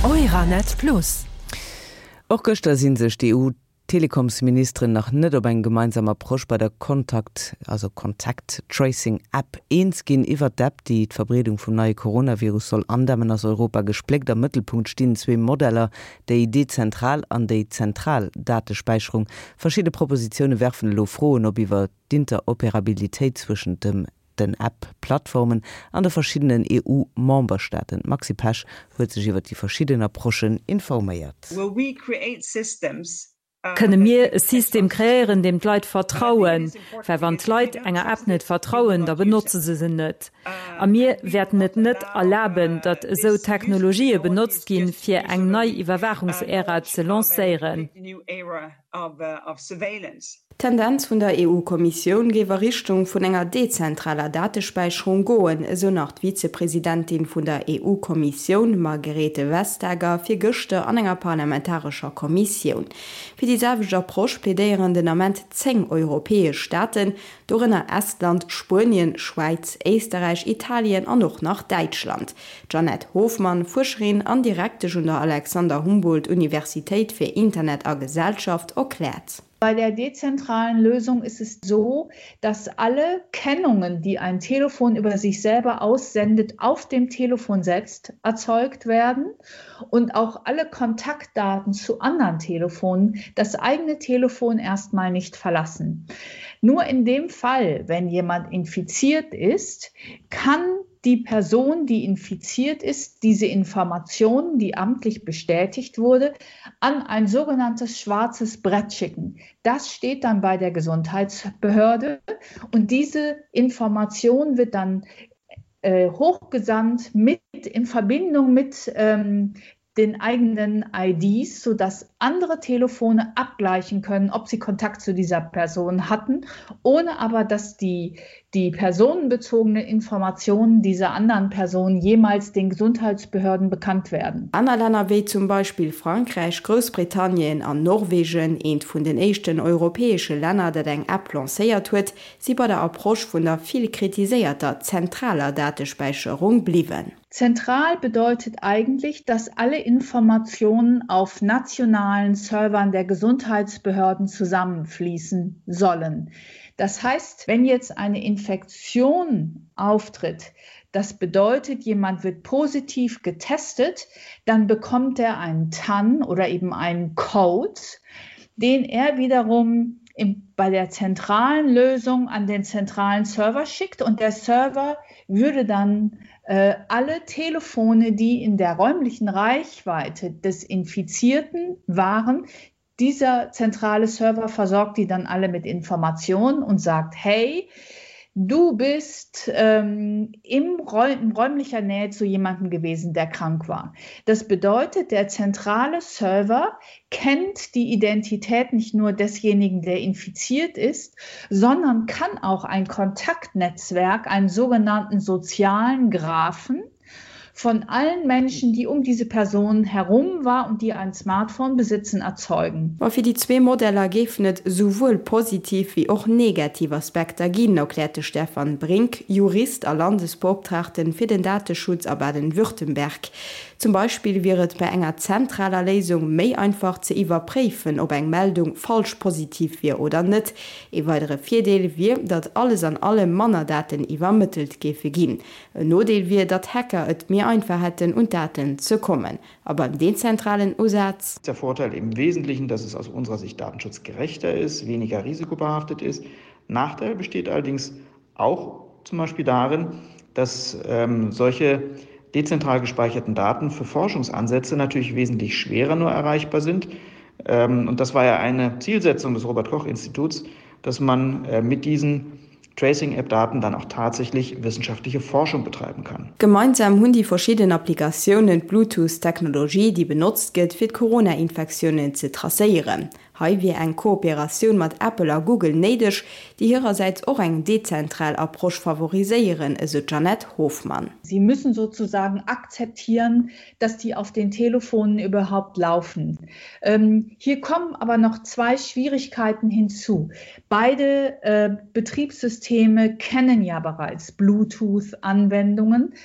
Euranet Plus. Och gëschter si sech d'EU-Telekomsministeren nach net op eng gemeinsam Approche bei der Kontakt, also Contact Tracing App eens ginn. Iwwert d'App, déi d'Verbreedung vum neie Coronavirus soll andämmen, ass Europa gespléckt. Am Mëttelpunkt stinn zwee Modeller, déi dezentral an déi zentral Datespäicherung. Verschidde Propositioune werfen elo Froen op iwwer d'Interoperabilitéit zwëschent dem den App-Plattformen an de verschiddenen EU-Memberstaaten. D'Maxi Pesch huet sech iwwer déi verschidden Approchen informéiert. Kënne mir e System kreéieren, deem d'Leit vertrauen? Well wann d'Leit enger App net vertrauen, da benotze se se net. A mir wäerten et net erlaben, datt esou Technologië benotzt ginn, fir eng nei Iwwerwaachungsära ze lancéieren. D'Tendenz vun der EU-Kommissioun géif a Richtung vun enger dezentraler Datespäicherung goen, esou nach d'Vizepresidentin vun der EU-Kommissioun Margrethe Vestager virgëschter an enger parlamentarescher Kommissioun. Fir déi selwecht Approche plädéieren den Ament 10 europäesch Staaten, dorënner Estland, Spuenien, Schwäiz, Éisterräich, Italien an och nach Däitschland. D'Jeanette Hofmann, Fuerscherin an Direktesch un der Alexander Humboldt Universitéit fir Internet a Gesellschaft, erkläert. Bei der dezentralen Lösung ist es so, dass alle Kennungen, die ein Telefon über sich selber aussendet, auf dem Telefon selbst erzeugt werden und auch alle Kontaktdaten zu anderen Telefonen das eigene Telefon erstmal nicht verlassen. Nur in dem Fall, wenn jemand infiziert ist, kann die Person, die infiziert ist, diese Information, die amtlich bestätigt wurde, an ein sogenanntes schwarzes Brett schicken. Das steht dann bei der Gesundheitsbehörde und diese Information wird dann äh, hochgesandt mit in Verbindung mit ähm, den eigenen IDs, sodass andere Telefone abgleichen können, ob sie Kontakt zu dieser Person hatten, ohne aber dass die, die personenbezogene Informationen dieser anderen Person jemals den Gesundheitsbehörden bekannt werden. Aner Länner wéi zum Beispill Frankräich, Groussbritannien an Norwegen, eent vun den éischten europäesche Länner, dat eng App lancéiert huet, si bei der Approche vun der vill kritiséierter zentraler Datespäicherung bliwwen. Zentral bedeutet eigentlich, dass alle Informationen auf nationalen Servern der Gesundheitsbehörden zusammenfließen sollen. Das heißt, wenn jetzt eine Infektion auftritt, das bedeutet, jemand wird positiv getestet, dann bekommt er einen TAN oder eben einen Code, den er wiederum im, bei der zentralen Lösung an den zentralen Server schickt und der Server würde dann äh, alle Telefone, die in der räumlichen Reichweite des Infizierten waren, dieser zentrale Server versorgt die dann alle mit Informationen und sagt: „Hey, du bist ähm, im Räum, in räumlicher Nähe zu jemandem gewesen, der krank war. Das bedeutet, der zentrale Server kennt die Identität nicht nur desjenigen, der infiziert ist, sondern kann auch ein Kontaktnetzwerk, einen sogenannten sozialen Graphen, von allen Menschen, die um diese Person herum war und die ein Smartphone besitzen, erzeugen. Ma fir déi zwee Modeller géifen et souwuel positiv wéi och negativ Aspekter ginn, erkläert de Stefan Brink, Jurist a Landesbeoptraagten fir den Dateschutz a Baden-Württemberg. Zum Beispill wier et bei enger zentraler Léisung méi einfach ze iwwerpréifen, ob eng Meldung falsch positiv wier oder net. Ee weidere Virdeel wier, datt alles an allem manner Daten iwwermëttelt géife ginn. En Nodeel wier, datt Hacker et méi einfach hätten, un d'Daten ze kommen. A beim dezentralen Usaz? Der Vorteil im Wesentlichen, dass es aus unserer Sicht datenschutzgerechter ist, weniger risikobehaftet ist. Nachteil besteht allerdings auch zum Beispiel darin, dass ähm, solche dezentral gespeicherten Daten für Forschungsansätze natürlich wesentlich schwerer nur erreichbar sind. Ähm, und das war ja eine Zielsetzung des Robert Koch Instituts, dass man äh, mit diesen Tracing-App-Daten dann auch tatsächlich wissenschaftliche Forschung betreiben kann. Gemeinsam hunn déi verschidden Applikatiounen d'Bluetooth-Technologie, déi benotzt gëtt, fir d'Corona-Infektiounen ze tracéieren. Hei wier eng Kooperatioun mat Apple a Google néideg, déi hirersäits och eng dezentral Approche favoriséieren, esou d'Jeanette Hofmann. Sie müssen sozusagen akzeptieren, dass die auf den Telefonen überhaupt laufen. Ähm, hier kommen aber noch zwei Schwierigkeiten hinzu. Beide äh, Betriebssysteme kennen ja bereits Bluetooth-Anwendungen.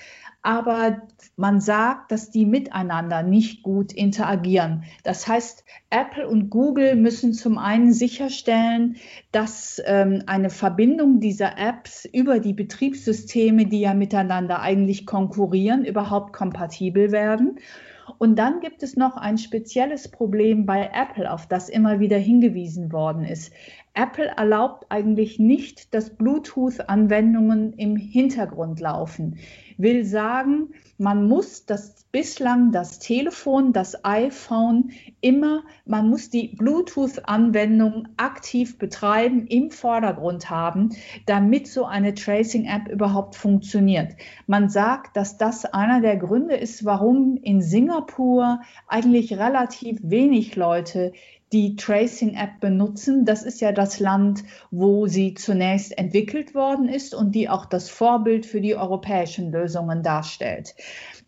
Aber man sagt, dass die miteinander nicht gut interagieren. Das heißt, Apple und Google müssen zum einen sicherstellen, dass ähm, eine Verbindung dieser Apps über die Betriebssysteme, die ja miteinander eigentlich konkurrieren, überhaupt kompatibel werden. Und dann gibt es noch ein spezielles Problem bei Apple, auf das immer wieder hingewiesen worden ist. Apple erlaubt eigentlich nicht, dass Bluetooth-Anwendungen im Hintergrund laufen. Will sagen, man muss das bislang das Telefon, das iPhone immer, man muss die Bluetooth-Anwendung aktiv betreiben, im Vordergrund haben, damit so eine Tracing-App überhaupt funktioniert. Man sagt, dass das einer der Gründe ist, warum in Singapur eigentlich relativ wenig Leute die Tracing-App benutzen. Das ist ja das Land, wo sie zunächst entwickelt worden ist und die auch das Vorbild für die europäischen Lösungen darstellt.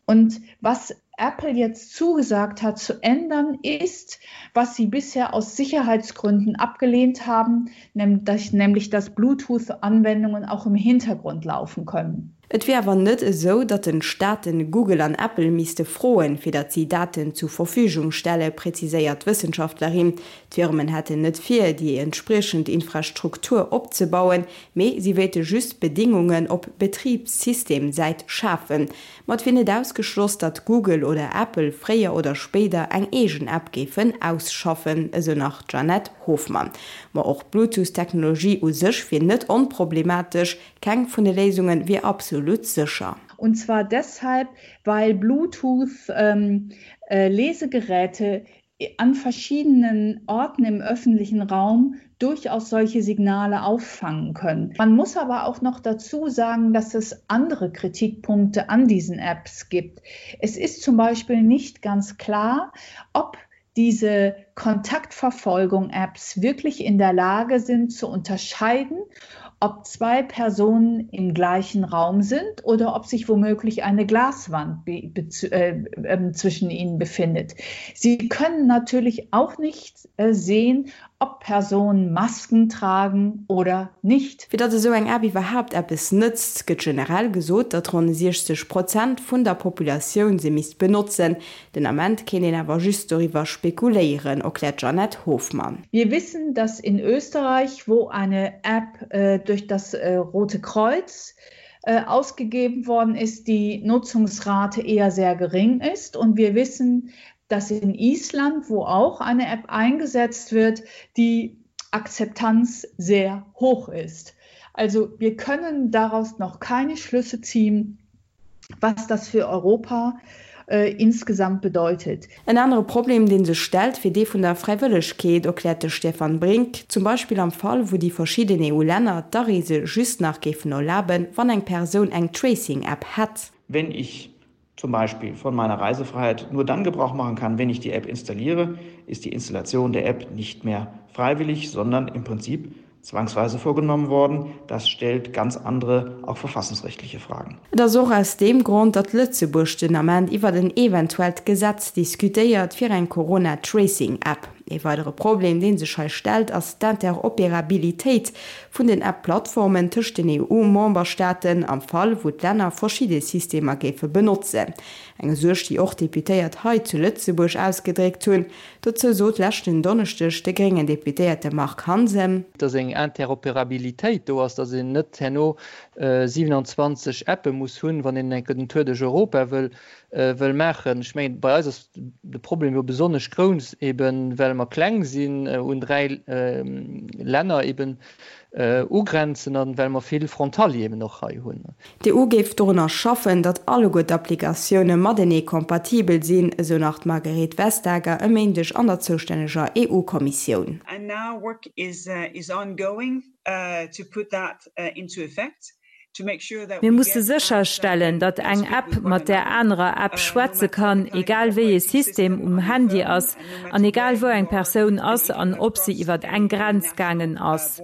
Und was Apple jetzt zugesagt hat zu ändern, ist, was sie bisher aus Sicherheitsgründen abgelehnt haben, nämlich dass Bluetooth-Anwendungen auch im Hintergrund laufen können. Et wier awer net esou, datt den Staaten Google an Apple misste froen, fir datt si Daten zu Verfügung stelle, präziséiert d'Wëssenschaftlerin. D'Firmen hätten net vir, déi entspriechend Infrastruktur opzebauen, mee si wéilte just Bedéngungen op Betribssystemsäit schafen. Ma et wier net ausgeschloss, datt Google oder Apple fréier oder spéider eng eegen App géifen ausschaffen, esou nach d'Jeanette Hofmann. Ma och d'Bluetooth-Technologie u sech wier net onproblematesch, Keng vun de Léisunge wier absolut sécher. Und zwar deshalb, weil Bluetooth-Lesegeräte ähm, äh, an verschiedenen Orten im öffentlichen Raum durchaus solche Signale auffangen können. Man muss aber auch noch dazu sagen, dass es andere Kritikpunkte an diesen Apps gibt. Es ist zum Beispiel nicht ganz klar, ob diese Kontaktverfolgung-Apps wirklich in der Lage sind zu unterscheiden, ob zwei Personen im gleichen Raum sind oder ob sich womöglich eine Glaswand äh, äh, zwischen ihnen befindet. Sie können natürlich auch nicht äh, sehen, ob Personen Masken tragen oder nicht. Fir datt esou eng App iwwerhaapt eppes nëtzt, gëtt generell gesot, datt ronn 60 Prozent vun der Populatioun se misst benotzen. Den Ament kéint een awer just doriwwer spekuléieren, erkläert d'Jeanette Hofmann. Wir wissen, dass in Österreich, wo eine App äh, durch das äh, Rote Kreuz äh, ausgegeben worden ist, die Nutzungsrate eher sehr gering ist. Und wir wissen, dass in Island, wo auch eine App eingesetzt wird, die Akzeptanz sehr hoch ist. Also wir können daraus noch keine Schlüsse ziehen, was das für Europa äh, insgesamt bedeutet. En anere Problem, dee sech stellt, wier dee vun der Fräiwëllegkeet, erkläert de Stefan Brink. Zum Beispill am Fall, wou déi verschidden EU-Länner d'Areese just nach géifen erlaben, wann eng Persoun eng Tracing-App hätt. Wenn ich zum Beispiel von meiner Reisefreiheit nur dann Gebrauch machen kann, wenn ich die App installiere, ist die Installation der App nicht mehr freiwillig, sondern im Prinzip zwangsweise vorgenommen worden. Das stellt ganz andere, auch verfassungsrechtliche Fragen. Et ass och aus deem Grond, datt Lëtzebuerg den Ament iwwert en eventuellt Gesetz diskutéiert fir eng Corona-Tracing-App. Ee weidere Problem, dee sech hei stellt, ass d'Interopérabilitéit vun den App-Plattformen tëscht den EU-Memberstaaten, am Fall wou d'Länner verschidde Systemer géife benotzen. Eng Suerg, déi och Deputéiert hei zu Lëtzebuerg ausgedréckt hunn. Dozou sot leschten Donneschdeg de gréngen Deputéierte Marc Hansen. Dass eng Interopérabilitéit do ass, dass een net herno 27 Appe muss hunn, wann een enke den Tour duerch Europa wëll wëll maachen. Ech mengen, bei eis ass de Problem jo besonnesch grouss, eben well mer kleng sinn, un 3 Länner eben ugrenzen an well mer vill Frontalieren och hei hunn. D'EU géif dorunner schaffen, datt alleguer d'Applikatioune matenee kompatibel sinn, esou nach d'Margrethe Vestager e Méindeg an der zoustänneger EU-Kommissioun. And now work is ongoing to put that into effect. Mir musse sécherstellen, datt eng App mat där anerer App schwätze kann, egal wéi ee System um Handy ass an egal wou eng Persoun ass an ob se iwwer eng Grenz gaangen ass.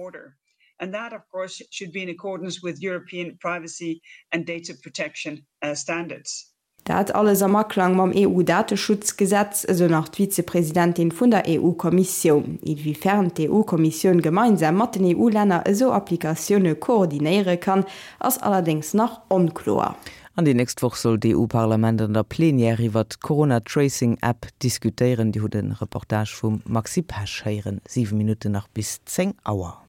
And that, of course, should be in accordance with European privacy and data protection standards. Dat alles am Aklang mam EU-Dateschutzgesetz, esou nach d'Vizepresidentin vun der EU-Kommissioun. Inwiefern d'EU-Kommissioun gemeinsam mat den EU-Länner esou Applikatioune koordinéiere kann, ass allerdéngs nach onkloer. An déi nächst Woch soll d'EU-Parlament an der Plenière iwwert d'Corona-Tracing-App diskutéieren. Dir hutt e Reportage vum Maxi Pesch héieren. 7 Minutten nach bis 10 Auer.